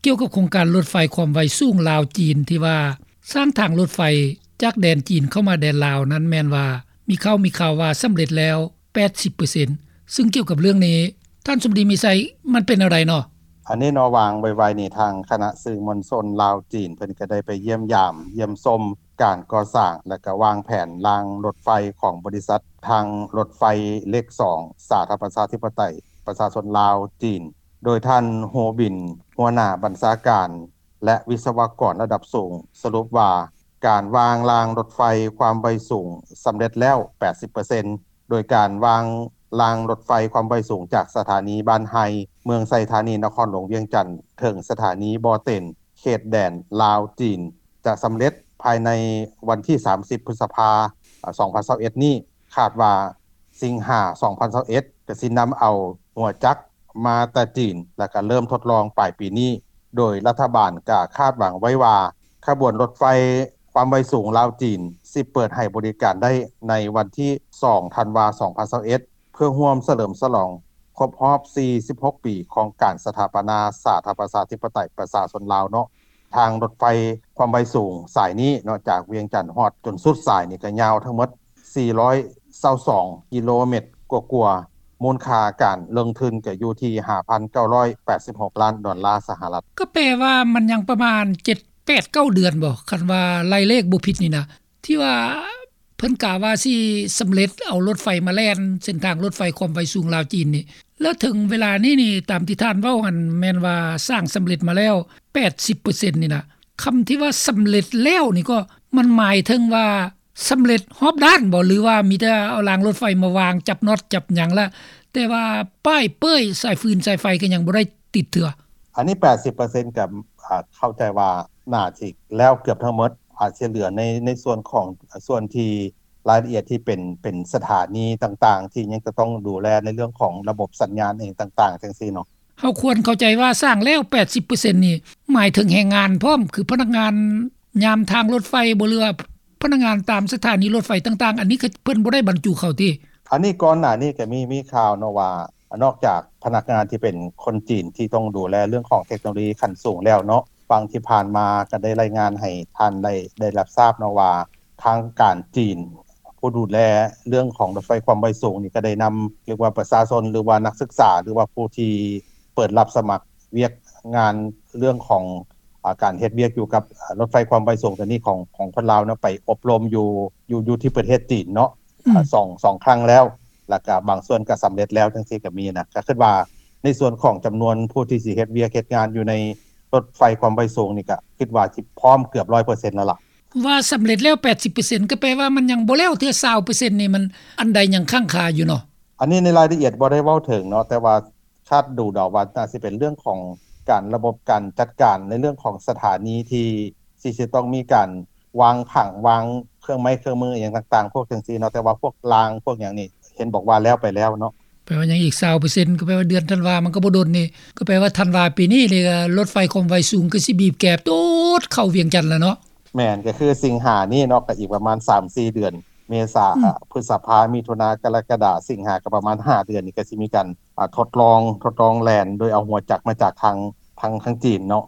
ກ່ຽວກັບໂຄງການລົດໄຟຄວາມໄວສູງລາວ-ຈີນ ທີ່ວ່າສ້າງທາງລົດໄຟຈາກແດນຈີນເຂົ້າມາແດນລາວນັ້ນ ແມ່ນວ່າມີຂ່າວ ມີຂ່າວວ່າສຳເລັດແລ້ວ ແປດສິບເປີເຊັນ ຊຶ່ງກ່ຽວກັບເລື່ອງນີ້ ທ່ານສົມດີ ມີໄຊ ມັນເປັນແນວໃດເນາະ? ອັນນີ້ເນາະ ວ່າງໄວໆນີ້ ທາງຄະນະສື່ມວນຊົນລາວ-ຈີນ ເພິ່ນກໍໄດ້ໄປຢ້ຽມຢາມ ຢ້ຽມຊົມການກໍ່ສ້າງ ແລະ ກໍວາງແຜນລາງລົດໄຟຂອງບໍລິສັດທາງລົດໄຟເລກສອງ ສາທາລະນະລັດປະຊາທິປະໄຕປະຊາຊົນລາວ-ຈີນ ໂດຍທ່ານ ໂຮບິນ ຫົວໜ້າບັນຊາການ ແລະ ວິສະວະກອນລະດັບສູງ ສະຫຼຸບວ່າ ການວາງລາງລົດໄຟຄວາມໄວສູງສຳເລັດແລ້ວ ແປດສິບເປີເຊັນ ໂດຍການວາງລາງລົດໄຟຄວາມໄວສູງຈາກສະຖານີບ້ານໄຮ ເມືອງໄຊທານີ ນະຄອນຫຼວງວຽງຈັນ ເຖິງສະຖານີບໍ່ເຕັນ ເຂດແດນລາວ-ຈີນ ຈະສຳເລັດພາຍໃນວັນທີສາມສິບ ພຶດສະພາ ສອງພັນຊາວເອັດນີ້. ຄາດວ່າສິງຫາ ສອງພັນຊາວເອັດ ກະຊິນຳເອົາຫົວຈັກມາແຕ່ຈີນ ແລະ ກະເລີ່ມທົດລອງປາຍປີນີ້ ໂດຍລັດຖະບານກະຄາດຫວັງໄວ້ວ່າ ຂະບວນລົດໄຟຄວາມໄວສູງລາວ-ຈີນ ຊິເປີດໃຫ້ບໍລິການໄດ້ໃນວັນທີສອງ ທັນວາ ສອງພັນຊາວເອັດ ເພື່ອຮ່ວມສະເຫຼີມສະຫຼອງຄົບຮອບສີ່ສິບຫົກປີຂອງການສະຖາປະນາສາທາລະນະລັດປະຊາທິປະໄຕປະຊາຊົນລາວເນາະ. ທາງລົດໄຟຄວາມໄວສູງສາຍນີ້ເນາະ ຈາກວຽງຈັນຮອດຈົນສຸດສາຍນີ້ ກະຍາວທັງໝົດສີ່ຮ້ອຍຊາວສອງກິໂລແມັດກວ່າໆ ມູນຄ່າການລົງທຶນກະຢູ່ທີ່ຫ້າພັນເກົ້າຮ້ອຍແປດສິບຫົກລ້ານດອນລາສະຫະລັດ. ກໍແປວ່າມັນຍັງປະມານເຈັດ ແປດ ເກົ້າເດືອນບໍ ຄັນວ່າໄລ່ເລກບໍ່ຜິດນີ້ນະ ທີ່ວ່າເພິ່ນກະວ່າຊິສຳເລັດເອົາລົດໄຟມາແລ່ນເສັ້ນທາງລົດໄຟຄວາມໄວສູງລາວ-ຈີນນີ້ ແລ້ວເຖິງເວລານີ້ນີ້ ຕາມທີ່ທ່ານເວົ້າຫັ້ນ ແມ່ນວ່າສ້າງສຳເລັດມາແລ້ວ ແປດສິບເປີເຊັນນີ້ນະ. ຄຳທີ່ວ່າສຳເລັດແລ້ວນີ້ກໍ ມັນໝາຍເຖິງວ່າສຳເລັດຮອບດ້ານບໍ ຫຼືວ່າມີແຕ່ເອົາລາງລົດໄຟມາວາງ ຈັບນັອດຈັບຫຍັງລະ ແຕ່ວ່າປ້າຍເປ້ຍສາຍຟືນສາຍໄຟກໍຍັງບໍ່ໄດ້ຕິດເທື່ອ? ອັນນີ້ແປດສິບເປີເຊັນ ກໍ ອາ ເຂົ້າໃຈວ່າໜ້າຊິແລ້ວເກືອບທັງໝົດ ອາດຊິເຫຼືອໃນ ໃນສ່ວນຂອງ ສ່ວນທີ່ລາຍລະອຽດທີ່ເປັນ ເປັນສະຖານີຕ່າງໆ ທີ່ຍັງຈະຕ້ອງດູແລໃນເລື່ອງຂອງລະບົບສັນຍານເອງຕ່າງໆ ຈັ່ງຊີ້ເນາະ. ເຮົາຄວນເຂົ້າໃຈວ່າສ້າງແລ້ວແປດສິບເປີເຊັນນີ້ ໝາຍເຖິງແຮງງານພ້ອມ ຄືພະນັກງານຍາມທາງລົດໄຟບໍ ຫຼືວ່າພະນັກງານຕາມສະຖານີລົດໄຟຕ່າງໆ ອັນນີ້ເພິ່ນບໍ່ໄດ້ບັນຈຸເຂົ້າຕິ? ອັນນີ້ກ່ອນໜ້ານີ້ກໍມີ ມີຂ່າວເນາະວ່າ ນອກຈາກພະນັກງານທີ່ເປັນຄົນຈີນທີ່ຕ້ອງດູແລເລື່ອງຂອງເທັກໂນໂລຢີຂັ້ນສູງແລ້ວເນາະ ຫວ່າງທີ່ຜ່ານມາກໍໄດ້ລາຍງານໃຫ້ທ່ານໄດ້ ໄດ້ຮັບຊາບເນາະວ່າ ທາງການຈີນຜູ້ດູແລເລື່ອງຂອງລົດໄຟຄວາມໄວສູງນີ້ ກໍໄດ້ນຳ ເອີ້ນວ່າປະຊາຊົນ ຫຼືວ່ານັກສຶກສາ ຫຼືວ່າຜູ້ທີ່ເປີດຮັບສະໝັກວຽກງານເລື່ອງຂອງ ອາ ການເຮັດວຽກຢູ່ກັບ ອາ ລົດໄຟຄວາມໄວສູງຕົວນີ້ຂອງ ຂອງຄົນລາວເນາະ ໄປອົບຮົມຢູ່ ຢູ່ ຢູ່ທີ່ປະເທດຈີນເນາະ ອືມ ອາ ສອງ ສອງຄັ້ງແລ້ວ ແລ້ວກະບາງສ່ວນກະສຳເລັດແລ້ວ ຈັ່ງຊີ້ກະມີນະ. ກະຄິດວ່າໃນສ່ວນຂອງຈຳນວນຜູ້ທີ່ຊິເຮັດວຽກເຮັດງານຢູ່ໃນລົດໄຟຄວາມໄວສູງນີ້ ກະຄິດວ່າຊິພ້ອມເກືອບຮ້ອຍເປີເຊັນແລ້ວລະ. ວ່າສຳເລັດແລ້ວແປດສິບເປີເຊັນ ກໍແປວ່າມັນຍັງບໍ່ແລ້ວເທື່ອຊາວເປີເຊັນນີ້ ມັນອັນໃດຍັງຄ້າງຄາຢູ່ເນາະ? ອັນນີ້ໃນລາຍລະອຽດບໍ່ໄດ້ເວົ້າເຖິງເນາະ ແຕ່ວ່າຄາດດູເດົາວ່າໜ້າຊິເປັນເລື່ອງຂອງການ ລະບົບການຈັດການໃນເລື່ອງຂອງສະຖານີທີ່ ທີ່ຊິຕ້ອງມີການວາງຜັງ ວາງເຄື່ອງໄມ້ເຄື່ອງມືອີ່ຫຍັງຕ່າງໆ ພວກຈັ່ງຊີ້ເນາະ ແຕ່ວ່າພວກລາງພວກຫຍັງນີ້ ເຫັນບອກວ່າແລ້ວໄປແລ້ວເນາະ. ແປວ່າຍັງອີກຊາວເປີເຊັນ ກໍແປວ່າເດືອນທັນວາມັນກໍບໍ່ດົນນີ້ ກໍແປວ່າທັນວາປີນີ້ນີ້ ລົດໄຟຄວາມໄວສູງກໍຊິບີບແກໂຕດເຂົ້າວຽງຈັນແລ້ວເນາະ. ແມ່ນ ກໍຄືສິງຫານີ້ເນາະ ກໍອີກປະມານສາມສີ່ເດືອນ ເມສາ ອືມ ພຶດສະພາ ມິຖຸນາ ກໍລະກະດາ ສິງຫາ ກໍປະມານຫ້າເດືອນນີ້ ກໍຊິມີການ ອາ ທົດລອງ ທົດລອງແລ່ນໂດຍເອົາຫົວຈັກມາຈາກທາງ ທາງ ທາງຈີນເນາະ.